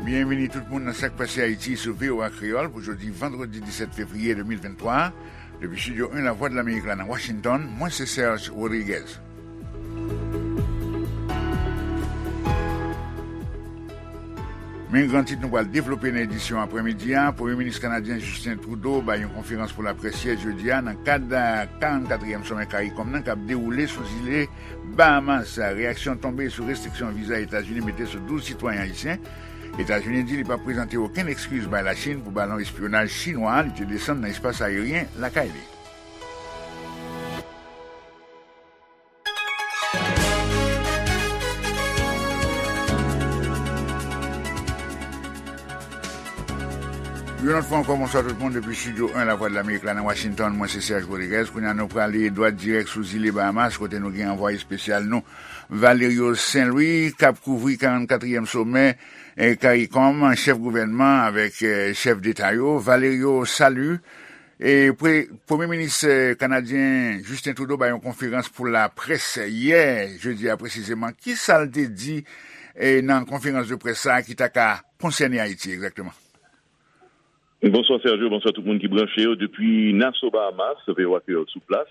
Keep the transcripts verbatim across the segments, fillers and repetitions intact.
Byenvini tout moun nan Sa k Pase Ayiti sou V O A Kreyòl pou jodi vandredi disèt fevriye de mil venntwa. Depi estidyo en Lavwadlamerik la nan Washington, mwen se Serge Rodriguez. Men gran tit nou pral devlope nan edisyon aprèmidi a. Premye minis kanadyen Justin Trudeau bay yon konferans pou laprès yè jedi a nan kad karannkatriyèm somè CARICOM nan k ap dewoule sou zile Bahamas. Reyaksyon tonbe sou restriksyon viza Etazini mete sou douz sitwayen ayisyen. Etazini di li p ap prezante okenn ekskiz bay Lachin pou balon espyonaj chinwa li te desann nan espas ayeryen lakay li. Yon lòt fwa ankò, bonswa tout moun depi estidyo en Lavwadlamerik la nan Washington. Mwen se Serge Rodriguez. Kounye a nou prale dwat dirèk sou zile Bahamas kote nou gen anvwaye espesyal nou, Valerio Saint-Louis, k ap kouvri karannkatriyèm somè, eh, CARICOM, chèf gouvènman avèk, eh, chèf deta yo. Valerio, salut. E pre-, Premye minis, eh, kanadyen Justin Trudeau bay yon konferans pou laprès yè, jedi a presizeman. Ki sa l te di, eh, nan konferans de près sa a ki ta ka konsène Ayiti egzakteman? Bonswa Sergio, bonswa tout moun ki branche yo. Depi Nassau, Bahamas, V O A Kreyòl sou plas.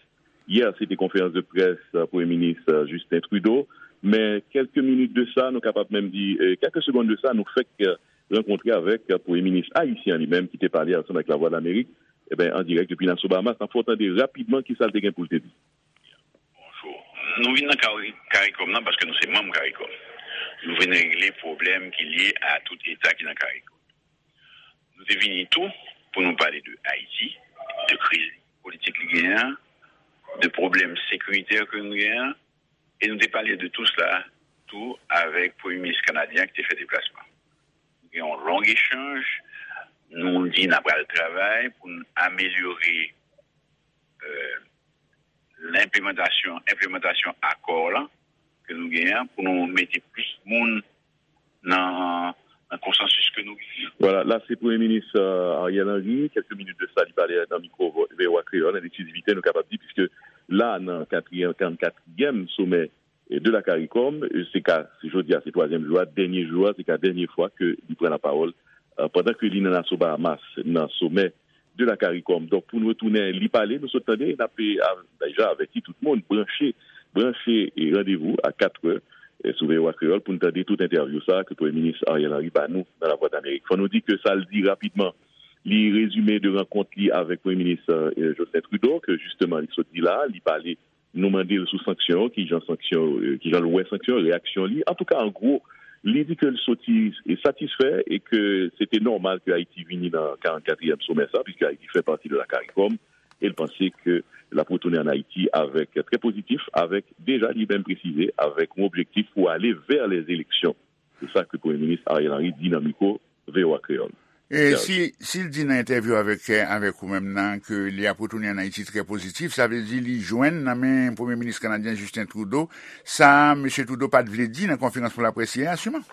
Yè, se te konferans de près, eh, Premye minis, eh, Justin Trudeau. Men kèlke minit de sa, nou kapab menm di, eh, kèlke segonn de sa, nou fèk, eh, rankontre avèk, eh, Premye minis ayisyen li menm ki te pale ansanm avèk Lavwadlamerik, eben, an dirèk depi Nassau, Bahamas. N ap fè w tande rapidman ki sa l te gen pou l te di. Bonjou. Nou vin nan Kari-, CARICOM nan paske nou se manm CARICOM. Nou vin regle pwoblèm ki lye a tout eta ki nan CARICOM. Nou te vini tou pou nou pale de Ayiti, de kriz politik li genyen an, de pwoblèm sekiritè ke nou genyen an, e nou te pale de tou sla tou avèk premye minis kanadyen an ki te fè deplasman. Nou gen yon long echanj, nou di n ap pral travay pou n amelyore, euh, lenplimantasyon, enplimantasyon akò la ke nou genyen an, pou nou mete plis moun nan, nan konsansis ke nou genyen. Vwala, la se Premye Minis, euh, Ariel Henry, kèlke minit de sa, li pale nan mikwo V O A Kreyòl, an eksklizivite, nou kapab di, piske la, nan katriyèm, karannkatriyèm somè, e, de la CARICOM, e, se ka, se jodi a, se twazyèm jou a, dènye jou a, se ka dènye fwa ke li pran lapawòl, e, pandan ke li nan Nassau Bahamas, nan somè de la CARICOM. Donk, pou nou retounen, li pale, nou sot tande, n ap, e, a, deja avèti tout moun, branche, branche, e, randevou a katrè, e, sou V O A Kreyòl pou n tande tout entèvyou sa a ke Premye Minis Ariel Henry ba nou nan Lavwadlamerik. Fò nou di ke sa l di rapidman, li rezime de rankont li avèk Premye Minis, e, Justin Trudeau, ke jisteman li sot di la, li pale Nou mande l sou sanksyon yo, kijan sanksyon yo, kijan l wè sanksyon yo, reyaksyon li. Antouka, an gwo, li di ke l soti satisfè e ke se te nòmal ke Ayiti vini nan karannkatriyèm somè sa, piske Ayiti fè pati de la CARICOM, e l panse ke l ap retounen ann Ayiti avèk, trè pozitif, avèk deja li menm presize, avèk yon objektif pou ale vè lèzeleksyon. Se sa ke Premye Minis Ariel Henry di nan mikwo V O A Kreyòl. E si, si l di nan entèvyou avèk, avèk ou menm nan, ke li ap retounen ann Ayiti trè pozitif, sa vle di li jwenn nan men Premye Minis kanadyen Justin Trudeau sa Mesye Trudeau pa t vle di nan konferans pou laprès yè a, siman?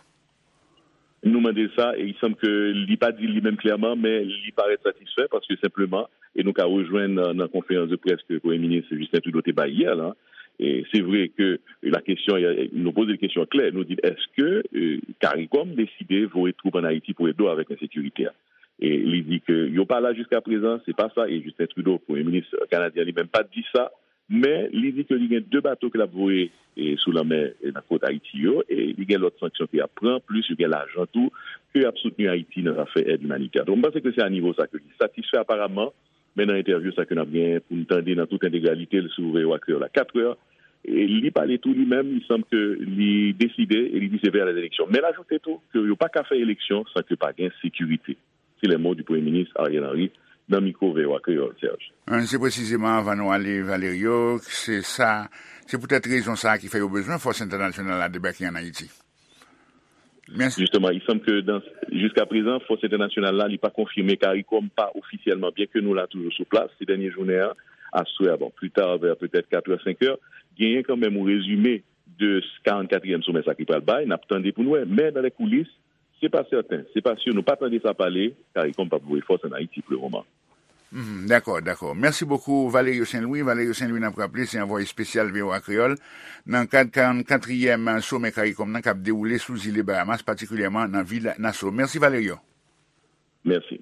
Nou mande l sa, e il semble ke li pa di l li menm klèman, men li parèt satisfè, paske senpleman, e nou ka rejwenn nan, nan konferans de près ke Premye Minis Justin Trudeau te bay yè la, e se vre ke la kesyon, nou poze l kesyon klè, nou di l, èske, e, CARICOM deside voye twoup ann Ayiti pou ede w avèk ensekirite a? E li di ke yo pa la jiska prezan, se pa sa, e Justin Trudeau, Premye Minis kanadyen, li menm pa t di sa, men li di ke li gen de bato ke l ap voye, e, sou lanmè, e, nan kot Ayiti yo, e li gen lòt sanksyon ke y ap pran, plis yo gen lajan tou ke y ap soutni Ayiti nan zafè èd imanitè. Donk, m panse ke se a nivo sa ke li satisfè aparaman, men nan entèvyou sa ke n ap gen pou n tande nan tout entegralite l sou V O A Kreyòl a katrè, e li pale tou li menm, il semble ke li deside e li di se vè lèzeleksyon. Men l ajoute tou ke yo pa ka fè eleksyon san ke pa gen sekirite. C'est les mots du Premye Minis Ariel Henry nan mikwo V O A Kreyòl, Serge. Se presizeman, anvan nou ale, Valerio, se sa, se poutèt rezon sa a ki fè yo bezwen fòs entènasyonal la debake ann Ayiti. Mèsi. Justement, il semble que dans, jiska prezan, fòs entènasyonal la, li pa konfime, CARICOM pa ofisyèlman, byen ke nou la toujou sou plas, se dènye jounen an, aswè a, bon, pli ta, vè petèt katrè, senkè, genyen kanmenm yon rezime de karannkatriyèm somè sa ki pral bay, n ap tande pou n wè, men dans les coulisses, se pa sèten, se pa si nou pa tande sa pale, CARICOM p ap voye fòs ann Ayiti pou le moman. Mhm, dakò, dakò. Mèsi bokou, Valerio Saint-Louis. Valerio Saint-Louis, n ap raple, se anvwaye espesyal V O A Kreyòl nan kad karannkatriyèm somè CARICOM nan k ap dewoule sou zile Bahamas, patikilyèman nan vil Nassau. Mèsi, Valerio. Mèsi.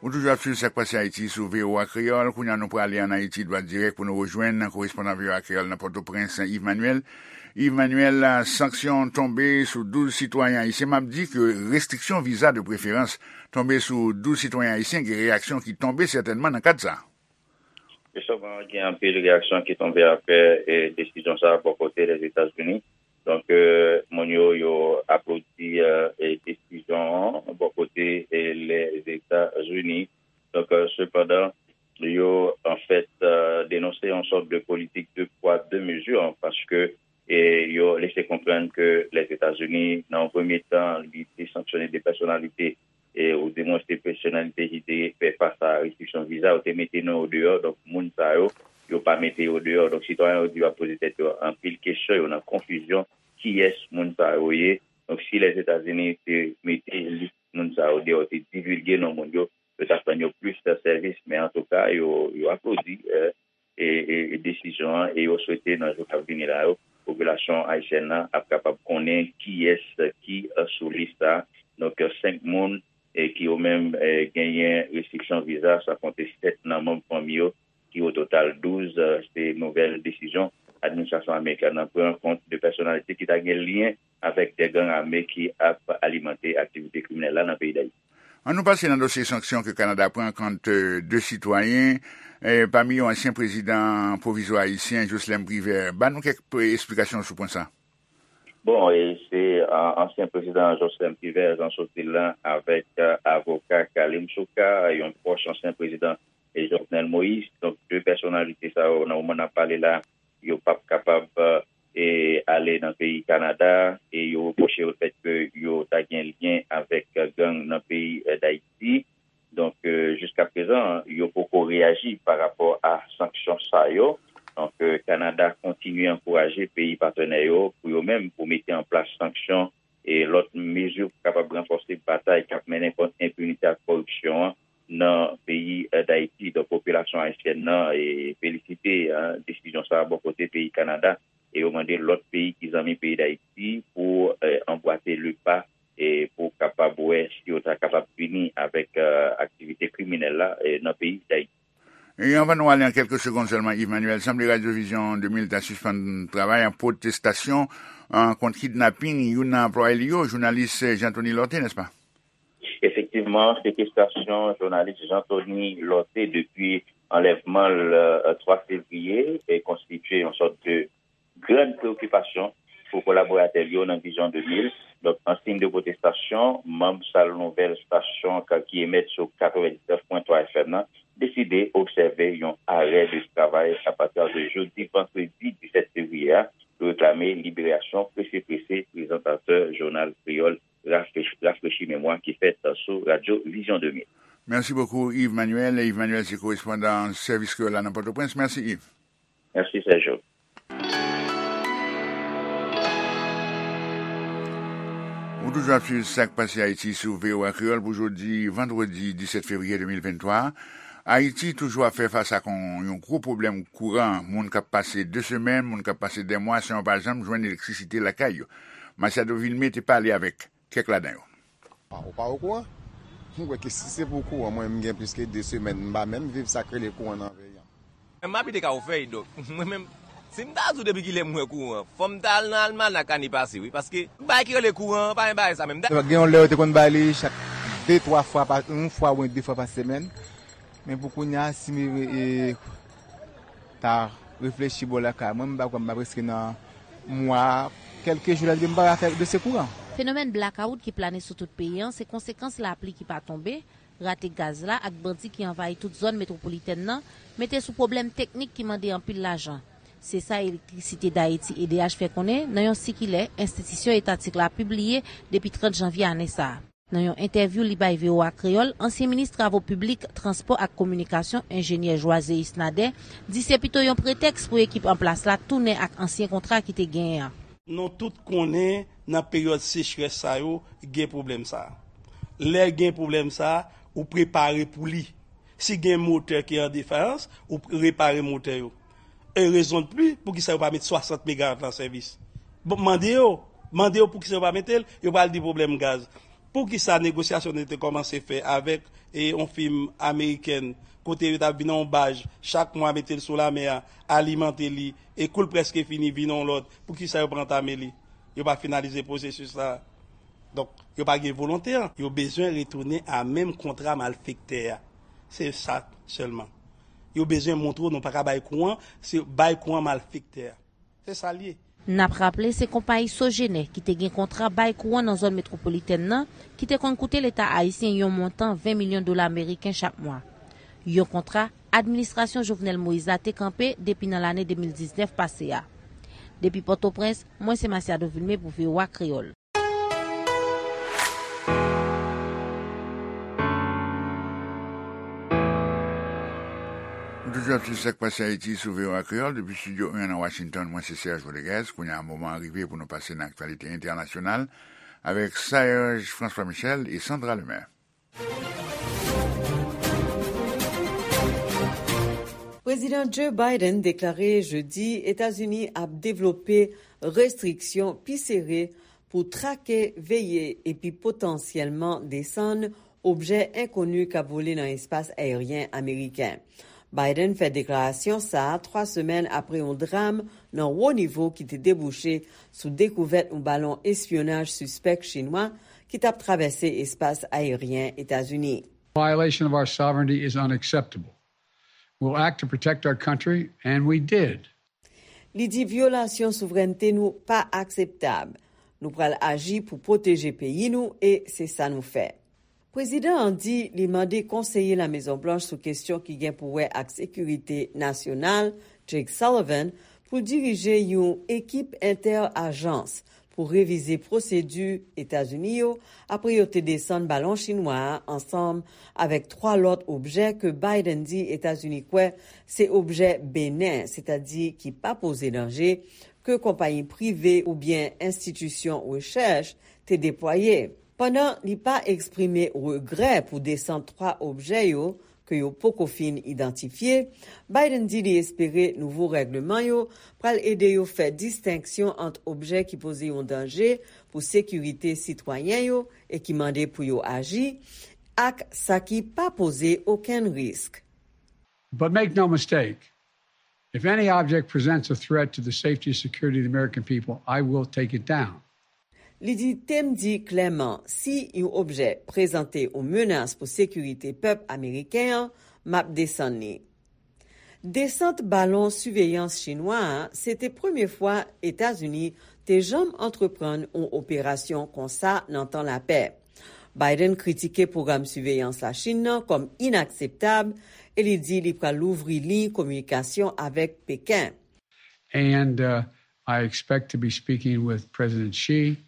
Ou toujou ap swiv Sa k Pase Ayiti sou V O A Kreyòl. Kounye a, nou prale ann Ayiti, dwat dirèk pou nou rejwenn korespondan V O A Kreyòl nan Pòtoprens, Yves Manuel. Yves Manuel, sanksyon tonbe sou douz sitwayen ayisyen. M ap di ke restriksyon viza de preferans tonbe sou douz sitwayen ayisyen, gen reyaksyon ki tonbe sètènman nan kad sa. Jisteman, gen anpil reyaksyon ki tonbe apre, e, desizyon sa a bò kote Lèzetazini. Donk, e, moun yo, yo aplodi, e, e, desizyon an bò kote, e, Lèzetazini. Donk, e, sepandan, yo, anfèt, e, denonse yon sòt de politik de pwa, de mezi, paske, e, yo lese konprann ke Lèzetazini, nan yon premye tan, li te sanksyone de pèsonalite, e, ou dimwen se pèsonalite ki te fè fas a restriksyon viza, yo te mete non yo deyò, donk moun sa yo, yo pa mete yo deyò. Donk sitwayen yo di yo ap poze tèt yo anpil kesyon, yo nan konfizyon, kiyès moun sa yo ye. Donk si Lèzetazini te mete lis moun sa yo deyò, te divilge non moun yo, yo t ap rann yo plis sèvis, men antouka, yo, yo aplodi, e, e, e, e desizyon an, e yo swete nan jou k ap vini la yo, popilasyon ayisyèn nan ap kapab konnen kiyès ki, e, sou lis sa. Donk, e, senk moun, e, ki yo menm, e, genyen restriksyon viza, san konte sèt nan manm fanmi yo, ki o total douz, e, se nouvèl desizyon administrasyon amerikèn nan pran kont de pèsonalite ki ta gen lyen avèk de gang ame ki ap alimante aktivite kriminèl la nan peyi Dayiti. Ann nou pase nan dosye sanksyon ke Kanada pran kont, e, de sitwayen, e, pami yo ansyen prezidan pwovizwa ayisyen Jocelerme Privert. Ban nou kèk, e, esplikasyon sou pwen sa. Bon, e se, a, ansyen prezidan Jocelerme Privert, Jean Sotil la, avèk, a, avoka Khalim Soukar, yon pwòch ansyen prezidan, e, Jovenel Moïse. Donk, de pèsonalite sa yo, nan moman n ap pale la, yo p ap kapab, e, ale nan peyi Kanada, e yo repwoche yo lefèt ke yo ta gen lyen avèk gang nan peyi, e, Dayiti. Donk, e, jiskaprezan, yo poko reyaji pa rapò a sanksyon sa yo. Donk, e, Kanada kontinye ankouraje peyi patnè yo pou yo menm pou mete an plas sanksyon e lòt mezi pou kapab ranfòse batay k ap mennen kont enpinite ak kòripsyon an nan peyi, e, Dayiti. Donk, popilasyon ayisyèn nan, e, felisite, e, desizyon sa a bò kote peyi Kanada, e yo mande lòt peyi ki zanmi peyi Dayiti pou, e, anbwate le pa, e, pou kapab wè si yo ta kapab fini avèk, e, aktivite kriminèl la, e, nan peyi Dayiti. E anvan nou ale, an kèlke segonn sèlman, Yves Manuel, sanble Radyo Vizyon de mil ta sispann travay an pwotestasyon, an, kont kidnaping youn nan anplwaye li yo, jounalis Jean Thony Lorthé, nèspa? Efektivman, sekestasyon jounalis Jean Thony Lorthé depi anlèvman l, e, twa fevriye, e konstitye yon sòt de grann preyokipasyon pou kolaboratè l yo nan Vizyon de mil. Donk, an siy de pwotestasyon, manm Sal Nouvèl, stasyon ka-, ki emèt sou katrevendiznèf pwen twa F M nan, deside obsève yon arè de travay apati de jodi vandredi disèt fevriye a pou reklame liberasyon prese prese prezantatè jounal kreyòl Rafrechi, Rafrechi Memwa ki fèt sou Radyo Vizyon de mil. Mèsi bokou, Yves Manuel. Yves Manuel se korespondan sèvis kreyòl la nan Pòtoprens. Mèsi, Yves. Mèsi, Sergio. Ou toujou ap swiv Sa k Pase Ayiti sou V O A Kreyòl pou jodi vandredi disèt fevriye de mil venntwa a. Ayiti toujou ap fè fas ak yon, yon gwo pwoblèm kouran. Moun k ap pase de semèn, moun k ap pase de mwa san yo pa janm jwenn elektrisite lakay yo. Machado Vilmé te pale avèk kèk ladan yo. Ou pa okouran? M kwè ke si se pou kouran, mwen menm gen plis ke de semèn, m pa menm viv sa k rele kouran nan peyi a. M abite Kafou Fèy, donk, mwen menm, si m ta di w depi kilè m wè kouran, fò m ta al nan almanak ane pase, wi, paske bagay ki rele kouran an, pa gen bagay sa menm. Gen yon lè yo te konn bay li chak de, twa fwa pa, yon fwa oubyen de fwa pa semèn. Men pou kounye a, si m, e, ta reflechi bò lakay mwen, m pa kwè m pa prèske nan mwa, kèlke jou la depi m pa fè dosye kouran. Fenomèn blakawout ki plane sou tout peyi an se konsekans lapli ki pa tonbe, rate gaz la ak bandi ki anvayi tout zòn metwopolitèn nan mete sou pwoblèm teknik ki mande anpil lajan. Se sa Elektrisite Dayiti, E D H, fè konnen nan yon sikilè enstitisyon etatik la pibliye depi trant janvye ane sa a. Nan yon entèvyou li bay V O A Kreyòl, ansyen minis travo piblik, transpò ak kominikasyon, enjenyè Joiséus Nader, di se pito yon pretèks pou ekip an plas la tounen ak ansyen kontra ki te genyen an. Nou tout konnen nan peryòd sechrès sa yo, gen pwoblèm sa a. Lè gen pwoblèm sa a, ou prepare pou li. Si gen motè ki an defayans, ou repare motè yo. E rezon de pli, poukisa yo pa met swasant megawat la an sèvis? Bon, mande yo, mande yo poukisa yo pa mete l, yo pral di pwoblèm gaz. Poukisa negosyasyon nou te kòmanse fè avèk e, yon fim amerikèn, kote yo t ap vin nan yon baj, chak mwa mete l sou lamè a, alimante li, e kou l prèske fini, vin yon lòt, poukisa yo pa antame li? Yo pa finalize pwosesis la. Donk, yo pa gen volonte an. Yo bezwen retounen a menm kontra malfektè a. Se sa sèlman. Yo bezwen montre w nou pa ka bay kou an, se bay kou an malfektè a. Se sa l ye. N ap raple, se konpayi Sogener ki te gen kontra bay kouran nan zòn metwopolitèn nan, ki te konn koute Leta ayisyen yon montan ven milyon dola ameriken chak mwa. Yon kontra administrasyon Jovenel Moïse la te kanpe depi nan lane de mil diznèf pase a. Depi Pòtoprens, mwen se Masiado Vilmé pou V O A Kreyòl. Nou toujou ap swiv sa k pase Ayiti sou V O A Kreyòl depi estidyo en nan Washington. Mwen se Serge Rodriguez. Kounye a, moman an rive pou nou pase nan aktyalite entènasyonal avèk Serge François Michel e Sandra Lemaire. Prezidan Joe Biden deklare jedi Etazini ap devlope restriksyon pi sere pou trake, veye epi potansyèlman desann objè enkoni k ap vole nan espas ayeryen ameriken. Biden fè deklarasyon sa a twa semèn apre yon dram nan wo nivo ki te debouche sou dekouvèt yon balon espyonaj sispèk chinwa ki t ap travèse espas ayeryen Etazini. Violation of our sovereignty is unacceptable. We'll act to protect our country, and we did. Li di vyolasyon souvrènte nou pa akseptab. Nou pral aji pou pwoteje peyi nou e se sa nou fè. Prezidan an di li mande konseye Lamezonblanch sou kesyon ki gen pou wè ak sekirite nasyonal, Jake Sullivan, pou l dirije yon ekip entè-ajans pou revize pwosedi Etazini yo apre yo te desann balon chinwa a ansanm avèk twa lòt objè ke Biden di Etazini kwè se objè benen, sètadi ki pa poze danje, ke konpayi prive oubyen enstitisyon rechèch te deplwaye. Pandan li pa eksprime regrè pou desant twa objè yo ke yo poko fin idantifye, Biden di li espere nouvo règleman yo pral ede yo fè distenksyon ant objè ki poze yon danje pou sekirite sitwayen yo e ki mande pou yo aji, ak sa ki pa poze okenn risk. But make no mistake, if any object presents a threat to the safety and security of the American people, I will take it down. Li di, te m di klèman, si yon objè prezante yon menas pou sekirite pèp ameriken an, m ap desann li. Desant balon siveyans chinwa a se te premye fwa Etazini te janm antreprann yon operasyon konsa nan tan lapè. Biden kritike pwogram siveyans Lachin nan kòm inakseptab e li di li pral louvri liy kominikasyon avèk Peken. And uh, I expect to be speaking with President Xi,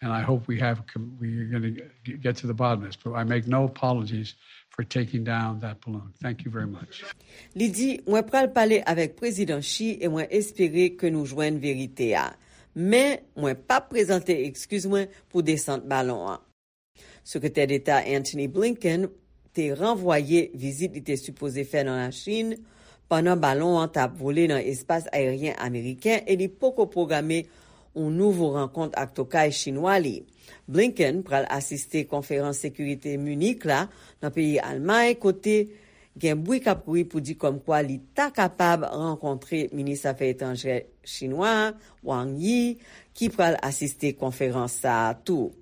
and I hope we have, we're going to get to the bottom of this, but I make no apologies for taking down that balloon. Thank you very much. Li di, mwen pral pale avèk Prezidan Xi e mwen espere ke nou jwenn verite a. Men, mwen p ap prezante ekskiz mwen pou desant balon an. Sekretè Deta Antony Blinken te ranvwaye vizit li te sipoze fè nan Lachin pandan balon an t ap vole nan espas ayeryen ameriken e li poko pwograme yon nouvo rankont ak tokay chinwa li. Blinken pral asiste konferans sekirite Munich la nan peyi Almay, kote gen bri k ap kouri pou di kòmkwa li ta kapab rankontre minis afè etranjè chinwa a, Wang Yi, ki pral asiste konferans sa a tou.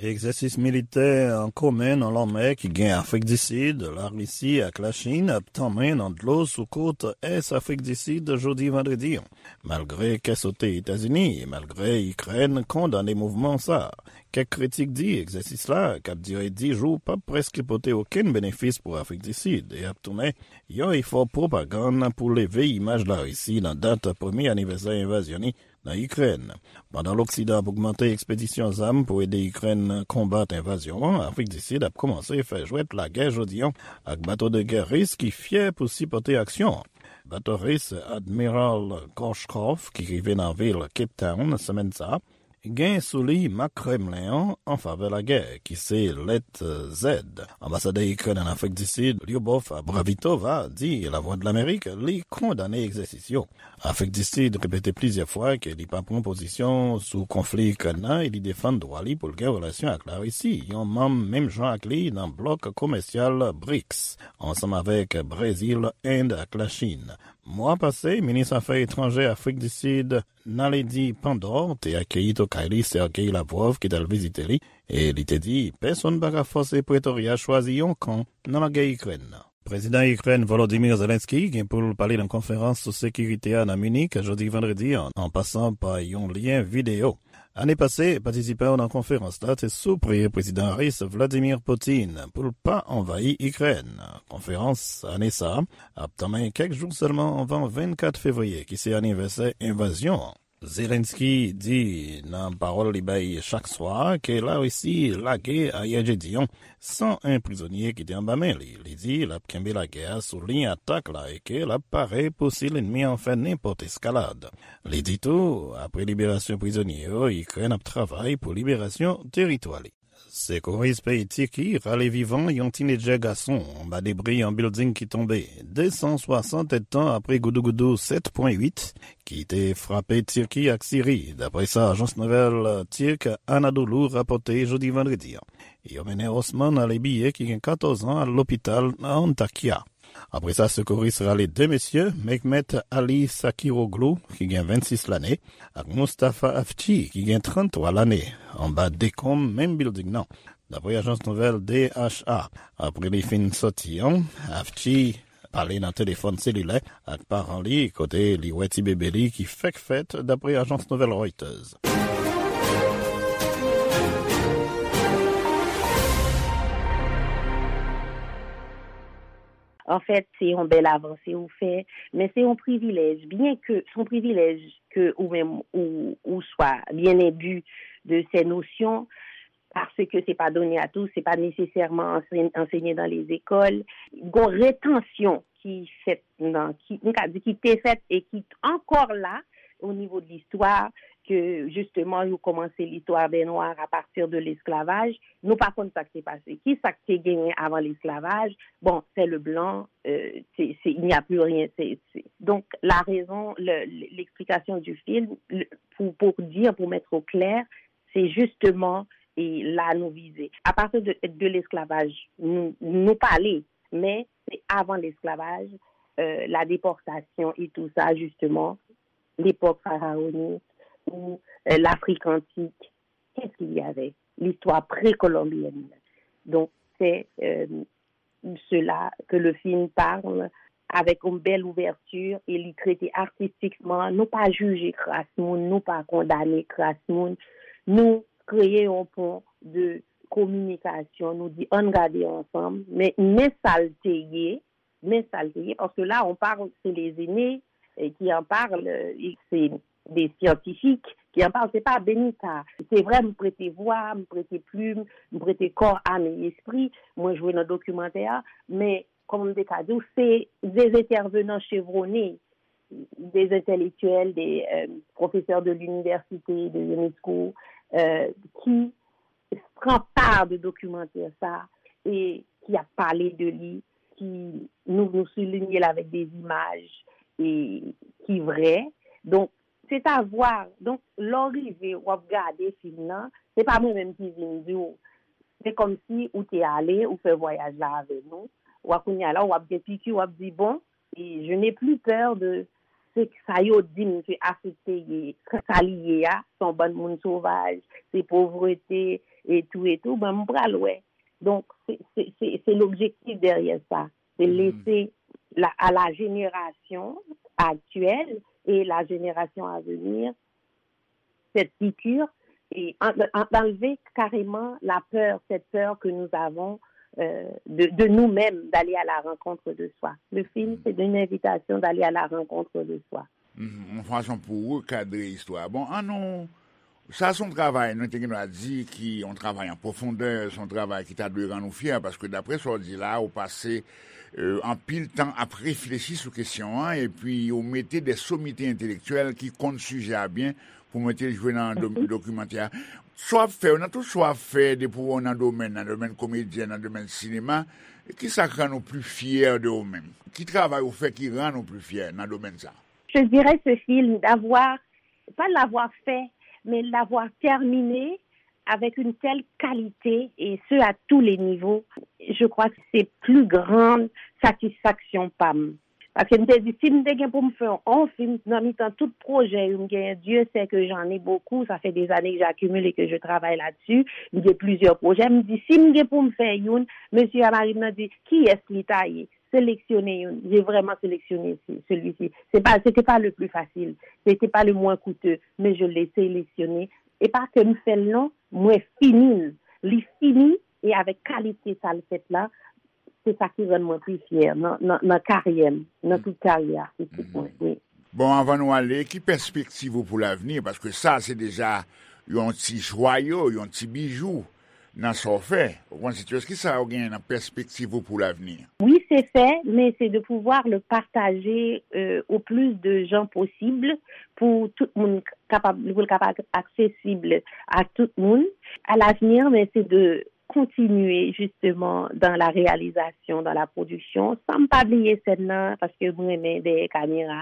Egzèsis militè an komen nan lanmè ki gen Afrik di Sid, Larisi ak Lachin ap tanmen nan dlo sou kot ès Afrik di Sid jodi vandredi an. Malgre kè sote Etazini e malgre Ikrèn kondane mouvman sa a, kèk kritik di egzèsis la, k ap dire dis jou, p ap prèske pote okenn benefis pou Afrik di Sid e ap tounen yon efò pwopagann pou leve imaj Larisi nan dat premye anivèsè envazyon li nan Ikrèn. Pandan Loksidan ap ogmante ekspedisyon zam pou ede Ikrèn konbat envazyon an, Afrik di Sid ap kòmanse fè jwèt lagè jodi an ak bato de gè ris ki fyè pou sipòte aksyon an. Bato ris Admiral Gorshkov, ki rive nan vil Cape Town semèn sa a, gen sou li mak Kremlen an an favè lagè, ki se lèt Z. Anbasadè Ikrèn ann Afrik di Sid, Lyubov Bravitova, di Lavwadlamerik li kondane egzèsis yo. Afrik di Sid repete plizyè fwa ke li pa pran pozisyon sou konfli Ikrèn nan e li defann dwa li pou l gen relasyon ak Larisi, yon manm menm jan ak li nan blòk komèsyal brics, ansanm avèk Brezil, End ak Lachin. Mwa pase, minis afè etranjè Afrik di Sid, Naledi Pandor, te akeyi tokay li, Sergey Lavrov, ki t al vizite li, e li te di pèsonn pa ka fòse Pretorya chwazi yon kan nan lagè Ikrèn nan. Prezidan Ikrèn Volodymyr Zelensky gen pou l pale nan konferans sou sekirite a nan Minik jodi vandredi an, an pasan pa yon lyen videyo. Ane pase, patisipan yo nan konferans la te sipriye Prezidan Ris Vladimir Putin pou l pa anvayi Ikrèn. Konferans ane sa a ap tanmen kèk jou sèlman anvan vennkat fevriye, ki se anivèsè envazyon an. Zelensky di nan pawòl li bay chak swa ke Larisi lage ayè jedi an san en prizonye ki te anba men li. Li di l ap kenbe lagè a sou liy atak la e ke l ap pare pou si lènmi an fè nenpòt eskalad. Li di tou, apre liberasyon prizonye yo, Ikrèn ap travay pou liberasyon teritwa li. Sekouris peyi Tiki rale vivan yon tinedjè gason anba debri yon bilding ki tonbe, de san swasant èdtan apre goudougoudou sèt pwen uit ki te frape Tiki ak Siri, dapre sa ajans nouvèl Tirk Anadolu rapòte jodi vandredi an. Yo mennen Osman Alebiye, ki gen katòz an, al lopital nan Antakya. Apre sa, sekouris rale de mesye, Mehmet Ali Sakiroglu, ki gen vennsis lane, ak Mustafa Afci, ki gen tranntwa lane, anba dekonm menm bilding nan, dapre ajans nouvèl D H A. Apre li fin sòti an, Afci pale nan telefòn selilè ak paran li, kote li wè ti bebe li ki fèk fèt, dapre ajans nouvèl Reuters. Anfèt, se yon bèl avanse ou fè, men se yon privilèj, byen ke se yon privilèj ke ou menm ou, ou swa byen enbi de ces notions, paske se pa donné à tous, se pa nesesèman ansenye nan lezekòl. Gon retansyon ki fèt nan, ki, m ka di ki te fèt e ki ankò la o nivo de listwa, ke jisteman yo kòmanse listwa bè nwa a pati de lesklavaj. Nou pa konn sa k te pase. Ki sa k te genyen avan lesklavaj? Bon, c'est le blanc, euh, c'est, c'est, il n'y a plus rien. C'est, c'est... Donc, la raison, le, l'explication du film, le, pour, pour dire, pour mettre au clair, c'est justement, et là nous viser. À partir de, de l'esclavage, nous, nous parler, mais c'est avant l'esclavage, euh, la déportation et tout ça, justement, l'époque pharaonique ou euh, l'Afrique antique. Qu'est-ce qu'il y avait? L'histoire précolombienne. Donc, c'est euh, cela que le film parle avec une belle ouverture et li trete artistikman. Nou pa jije kras moun, nou pa kondane kras moun. Nou kreye yon pon de kominikasyon, nou di ann gade ansanm, men, men sa l te ye, men sa l te ye, paske la, on parle, c'est les aînés eh, qui en parlent, eh, c'est des scientifiques qui en parlent, c'est pas Benita. Se vre, m prete vwa, m prete plim, m prete kò, am e espri, mwen jwe nan dokimantè a, men, kòman m te ka di w, se des intervenants chevronnés, des intellectuels, des euh, professeurs de l'université, de l'UNESCO, euh, qui pran pa de dokimantè sa e ki ap pale de li, ki nou, nou soulinye l avèk de imaj e ki vrè. Donk, se ta vwa. Donk, lè w rive, w ap gade fim nan, se pa mwen menm ki vin di w. Se kòmsi ou te ale, ou fè vwayaj la avè nou. W ap kounye a la, w ap gen piki, w ap di, bon, e je n'ai plus peur de se sa yo di m ke Afrik te ye, sa li ye a, se yon bann moun sovaj, se povrete, e tou, e tou, ben, m pral wè. Donk, se, se, se, se l'objectif derrière ça. C'est laisser la, à la génération actuelle et la génération à venir cette piqûre et en- en- enlever carrément la peur, cette peur que nous avons euh, de, de nous-mêmes, d'aller à la rencontre de soi. Le film, c'est une invitation d'aller à la rencontre de soi. Mhm, yon fason pou rekadre istwa. Bon, an nou, sa se yon travay, nou te gen dwa di, ki yon travay an pwofondè, se yon travay ki ta dwe rann nou fyè, paske daprè sa w di la, ou pase euh, anpil tan ap reflechi sou kesyon an, epi ou mete de somite entelektyèl ki konn sijè a byen pou mete l jwe nan do-, dokimantè a. Sa w ap fè yo, nan tout sa w ap fè, depi w nan domèn, nan domèn komedyè, nan domèn sinema, ki sa k rann ou pli fyè de ou menm? Ki travay ou fè ki rann ou pli fyè nan domèn sa? Je dirais ce film, d'avoir, pas l'avoir fait, mais l'avoir terminé avec une telle qualité, et ce à tous les niveaux, je crois que c'est plus grande satisfaction pa m. Paske m te di, si m te gen pou m fè yon fim nan mitan tout pwojè yo m genyen, Dieu sait que j'en ai beaucoup, ça fait des années que j'accumule et que je travaille là-dessus, m gen plizyè pwojè, m di, si m gen pou m fè youn, mesye a mari m nan di, kiyès li ta ye? Sélectionner youn. J'ai vraiment sélectionné ce- celui-ci. C'est pas, c'était pas le plus facile. C'était pas le moins coûteux, mais je l'ai sélectionné. E pa ke m fè l non, mwen fini l. Li fini, e avèk kalite sa l fèt la, se sa ki rann mwen pi fyè nan, nan, nan karyè m, nan tout karyè atistik mwen. Wi. Bon, anvan nou ale, ki pèspektiv ou pou lavni? Paske sa, se deja yon ti jwayo, yon ti bijou nan sa w fè. Ou konn, Sitios, ki sa w genyen nan pèspektiv ou pou lavni? Oui, c'est fait, mais c'est de pouvoir le partager, euh, au plus de gens possible pour tout moun kapab, pou l kapab accessible à tout moun. À l'avenir, mais c'est de continuer justement dans la réalisation, dans la production, san m pa bliye sèn nan, paske m renmen dèyè kamera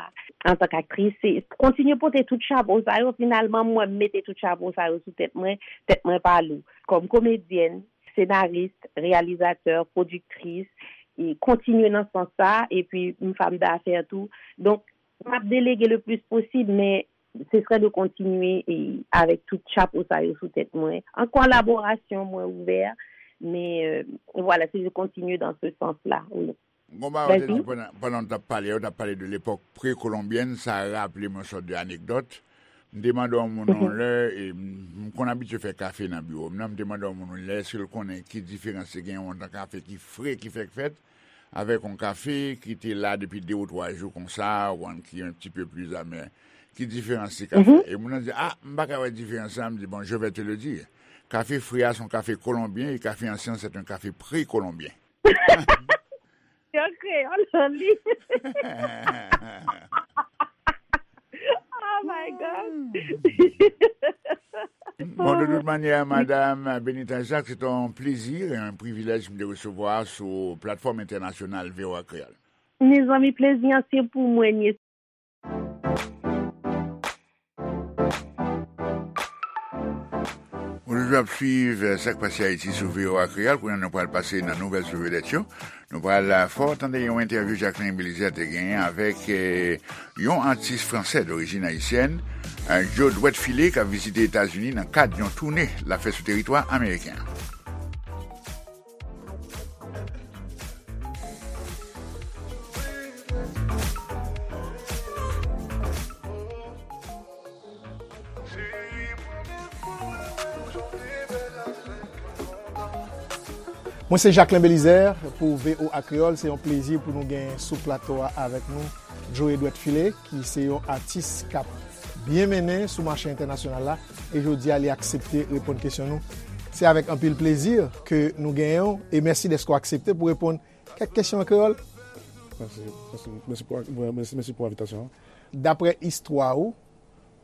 an tan k aktris. Se kontinye pote tout chapo sa yo, finalman, mwen, m mete tout chapo sa yo sou tèt mwen, tèt mwen pa lou. Kòm komedyèn, senaris, reyalizatè, pwodiktris, e kontinye nan sans sa, epi m fanm dafè tou. Donk, m ap delege le plis posib, men se sre de kontinye e avèk tout chapo sa yo sou tèt mwen. An kolaborasyon, mwen ouvè, men, euh, voilà, se de continuer dans ce sens-là, oui. Gon bagay ou te di pandan, pandan w t ap pale, ou t ap pale de lepòk prekolonbyèn, sa raple m yon sòt de anekdòt. M te mande yon moun yon lè, e m, m konn abitye fè kafe nan biwo m nan, m te mande yon moun yon lè, èske l konnen ki diferans te gen yon tan kafe ki fre, ki fèk fèt, avèk yon kafe ki te la depi de ou twa jou konsa, ou konn ki un petit peu plus amer. Ki diferans ti kafe? E moun nan di, ah, m pa ka wè diferans la. M di, bon, je vais te le dire. Kafe fre a se yon kafe kolonbyen, e kafe ansyen, c'est un café précolombien. Yo kreyòl li. Oh my God. Bon, de tout manyè, Madam Benita Jacques, se te yon plezi e yon privilèj m te resevwa sou platfòm entènasyonal V O A Kreyòl. Mezanmi, plezi an se pou mwen, Ou toujou ap swiv, eh, Sa k Pase Ayiti sou V O A Kreyòl. Kounye a, nou pral pase nan nouvèl sou vedèt yo. Nou pral, eh, fè w tande yon entèvyou Jacquelin Belizaire te genyen avèk, eh, yon atis fransè dorijin ayisyèn, eh, Joe Dwèt File, k ap vizite Etazini nan kad yon toune l ap fè sou teritwa ameriken an. Mwen se Jacquelin Belizaire pou V O A Kreyòl. Se yon plezi pou nou gen sou plato a avèk nou Joe Edward File, ki se yon atis k ap byen mennen sou mache entènasyonal la. E jodi a, li aksepte reponn kesyon nou. Se avèk anpil plezi ke nou genyen w, e mèsi dèske w aksepte pou reponn kèk kesyon an kreyòl. Mèsi, mèsi, mèsi pou, mèsi, mèsi pou envitasyon an. Daprè istwa ou,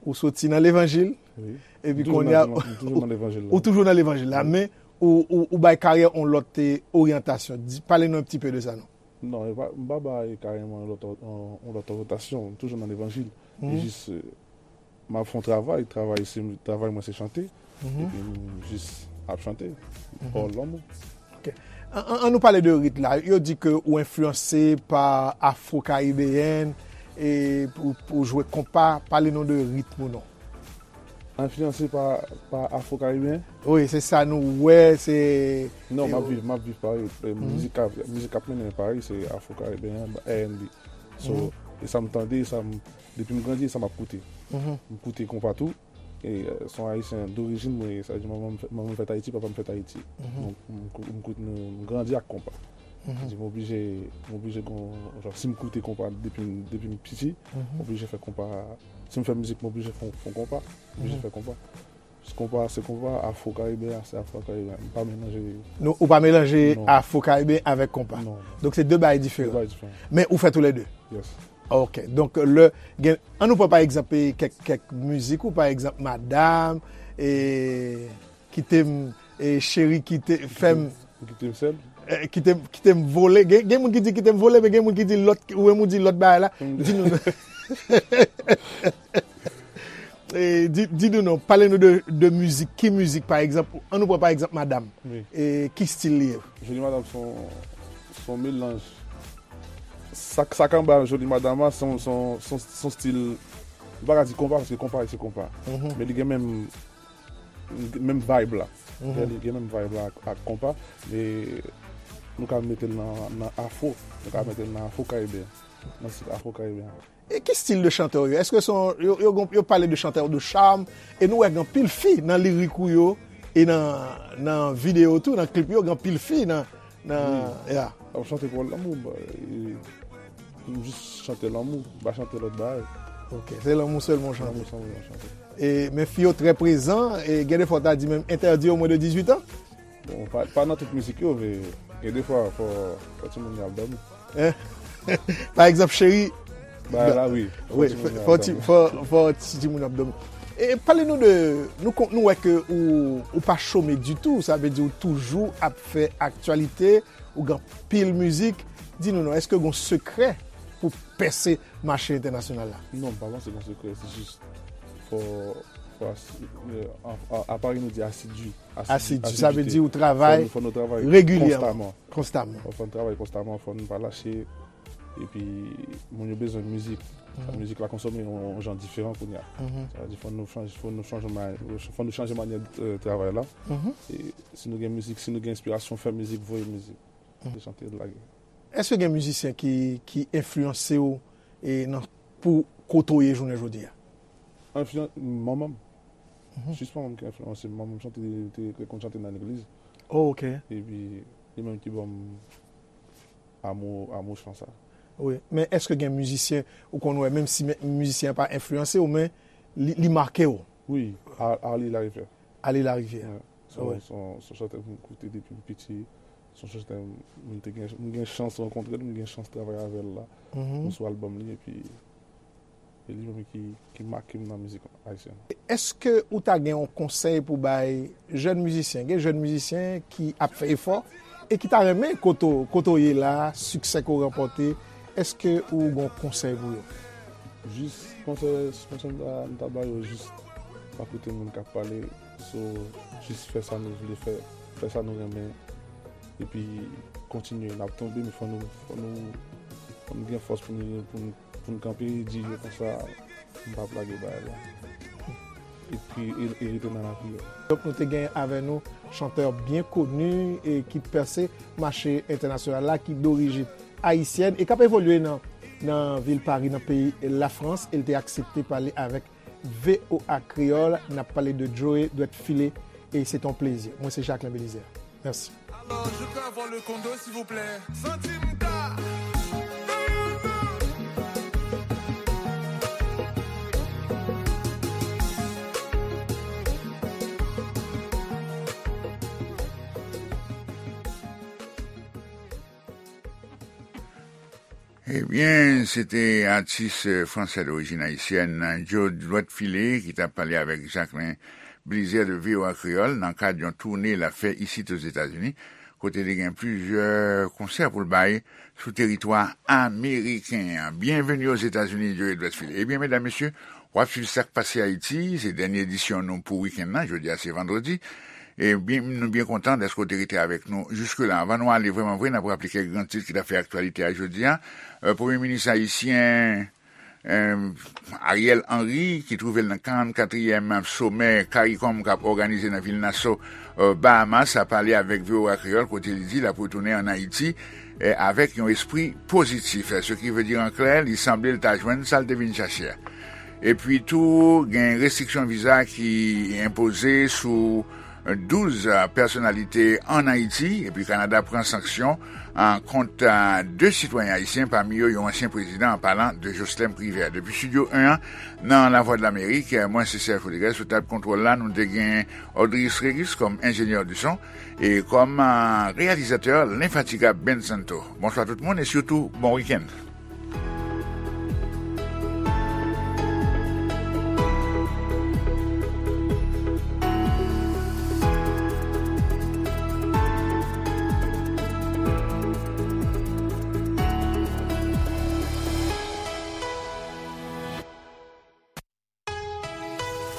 ou soti nan levanjil, wi, epi kounye a, ou toujou nan levanjil la. Ou toujou nan levanjil la, wi, men ou, ou, ou bay karyè yon lòt, eh, oryantasyon. Di, pale nou un petit peu de sa, non? Non, e pa, m pa bay karyè mwen yon lòt, yon, yon lòt oryantasyon. M toujou nan levanjil. E jis, eh, m ap fè yon travay, travay se, travay mwen se chante, epi m jis ap chante. All lanmou. Ok. An, an, an nou pale de rit la. Yo di ke ou enfliyanse pa afro-karibeyèn e pou, pou jwe konpa, pale nou de ritm ou non. Enfliyanse pa, pa afro-karibeyen? Wi, se sa nou wè, se... Non, m ap viv, m ap viv Pari. E mizik k ap, mizik k ap mennen Pari, se afro-karibeyen, R and B. So, e sa m tande, sa m, depi m grandi, e sa m ap koute. M koute konpa tou. E, eh, se yon ayisyen dorijin mwen ye, sa vle di manman m fè-, manman m fèt Ayiti, papa m fèt Ayiti. Donk, m kou-, m kout-, m, m grandi ak konpa. Sa vle di m oblije, m oblije gon, jan, si m koute konpa depi m, depi m piti, m oblije fè konpa, si m fè mizik, m oblije fè, fè konpa, m oblije fè konpa. Konpa se konpa, afro karibyen se afro karibyen. M pa melanje. Nou, ou pa melanje afro karibyen avèk konpa. Non, non. Donk se de bagay diferan. De bagay diferan. Men ou fè tou le de. Yes. Ok. Donk, le, gen, an nou pran pa egzanp, e, kèk, kèk mizik ou, pa egzanp, Madam, e, Kite m, e, Cheri, kite, fè m. Ou kite m sèl? E, kite, kite m vole. Gen, gen moun ki di kite m vole, men gen moun ki di lòt, ou menm ou di lòt bagay la. Di nou. E, di, di nou non, pale nou de, de mizik. Ki mizik, pa egzanp, an nou pran pa egzanp Madam. Wi. E, ki stil li ye? Joli Madam se yon, se yon melanj. Sa, sa k anba Joli Madam a, se yon, se yon, se yon, se yon stil, m pa ka di konpa, paske konpa se konpa. Mhm. Men li gen menm, menm vibe la. Mhm. Li gen menm vibe la ak, ak konpa, men nou ka mete l nan, nan afro. Nou ka mete l nan afro karibyen. Nan stil afro karibyen. E ki stil de chantè w ye? Èske se yon, yo, yo, yo pale de chantè de charme, e nou wè gen anpil fi nan lirik ou yo, e nan, nan videyo tou, nan klip yo, gen anpil fi nan, nan, ya. Ap chante pou lanmou, ba, e, m jis chante lanmou, m pa chante lòt bagay. Ok, se lanmou sèlman w chante. Lanmou sèlman m chante. E, men fi yo trè prezan, e gen de fwa w ta di menm entèdi yo mwens de dizuit an? Bon, pa, pa nan tout mizik yo, men gen de fwa, fò, fò timoun yo ap dòmi. Hein? Pa egzanp, Cheri. Bagay la, wi. Wi, fò timoun yo ap dòmi. Fò, fò ti timoun yo ap dòmi. E pale nou de, nou kon, nou wè ke ou, ou pa chome ditou, sa vle di ou toujou ap fè aktyalite, ou gen anpil mizik. Di nou non, èske gen yon sekrè pou pèse mache entènasyonal la? Non, m pa panse gen sekrè, se jis fò, fò asi-, e, an, an, aparèy nou di asidui. Asidui, sa vle di ou travay regilyèman. Fò nou, fò nou travay konstaman. Konstaman. Fò, fò nou travay konstaman, fò nou pa lache. Epi, moun yo bezwen mizik. Sa, mhm, mizik la konsome yon, yon jan diferan kounye a. Mhm. Sa vle di, fò nou chanje, fò nou chanje, fò nou chanje manyè, e, travay la. Mhm. E si nou gen mizik, si nou gen enspirasyon, fè mizik, voye mizik. Mhm. Se chante, lage. Èske gen mizisyen ki, ki enfliyanse w, e, nan, pou kote w ye jounen jodi a? Enfliyan-, manman m. Mhm. Jis manman m ki enfliyanse m. Manman m chante, te, te konn chante nan legliz. Oh, ok. Epi, li menm ki ban m amou, amou chan sa. Wi, men èske gen mizisyen ou konn wè, menm si men, mizisyen an pa enfliyanse w, men li, li make w? Wi, A-, Arly Larivière. Arly Larivière. Wi. Se yon, se yon, se yon chantè m koute depi m piti. Se yon chantè m, m te gen, m gen chans rankontre l, m gen chans travay avè l la. Mhm. Sou albòm li, epi e li menm ki, ki make m nan mizik ayisyèn. Èske ou ta gen yon konsèy pou bay jèn mizisyen? Gen jèn mizisyen ki ap fè efò e ki ta renmen kote w, kote w ye la, siksè ke w ranpòte. Èske ou gen yon konsèy pou yo? Jis konsèy, konsèy m ta, m ta ba yo, jis pa koute moun k ap pale, so, jis fè sa nou vle fè, fè sa nou renmen, epi kontinye. N ap tonbe, men fò nou, fò nou, fò nou gen fòs pou nou, pou nou, pou nou kanpe, di yo konsa, m p ap lage bagay la. Epi, e, e rete nan lapriyè. Donk, nou te gen avè nou chantè byen koni e ki pèse mache entènasyonal la, ki dorijin ayisyèn e k ap evolye nan, nan vil Pari, nan peyi Lafrans, e l te aksepte pale avèk V O A Kreyòl. N ap pale de Joe Dwèt File, e se t on plezi. Mwen, se Jacquelin Belizaire. Mèsi. Alors, je peux avoir le condo, s'il vous plaît? Santi m ka. Ebyen, se te atis, eh, fransè dorijin ayisyèn, Joe Dwèt File, ki t ap pale avèk Jacquelin Belizaire de V O A Kreyòl nan kad yon toune l ap fè isit Ozetazini, kote li gen plizyè konsè pou l bay sou teritwa ameriken an. Byenveni Ozetazini, Joe Dwèt File. Ebyen, medam, mesye, w ap swiv Sa k Pase Ayiti, se dènye edisyon nou pou wikenn nan, jodi a se vandredi. E byen, nou byen kontan dèske w te rete avèk nou jiske la. Anvan nou ale vrèman vre, n ap raple kèk gran tit ki t ap fè aktyalite a jodi a. Eh, Premye Minis ayisyen, eh, Ariel Henry, ki twouve l nan karannkatriyèm somè CARICOM k ap òganize nan vil Nassau, eh, Bahamas, a pale avèk V O A Kreyòl, kote li di l ap retounen ann Ayiti, eh, avèk yon espri pozitif. Ce qui veut dire en clair, li sanble l ta jwenn sa l te vin chache a. Epi tou, gen restriksyon viza ki enpoze sou, douz pèsonalite ann Ayiti, epi Kanada pran sanksyon kont de sitwayen ayisyen, pami yo yon ansyen prezidan, an palan de Joslèm Privè. Depi Estidyo en an, nan Lavwadlamerik, mwen se Serge Rodriguez, sou tab kontwòl la, nou te gen Audrey Sregis kòm enjenyè di son, e kòm reyalizatè, lenfatigab Ben Santo. Bonswa tout moun, e sitou, bon wikenn.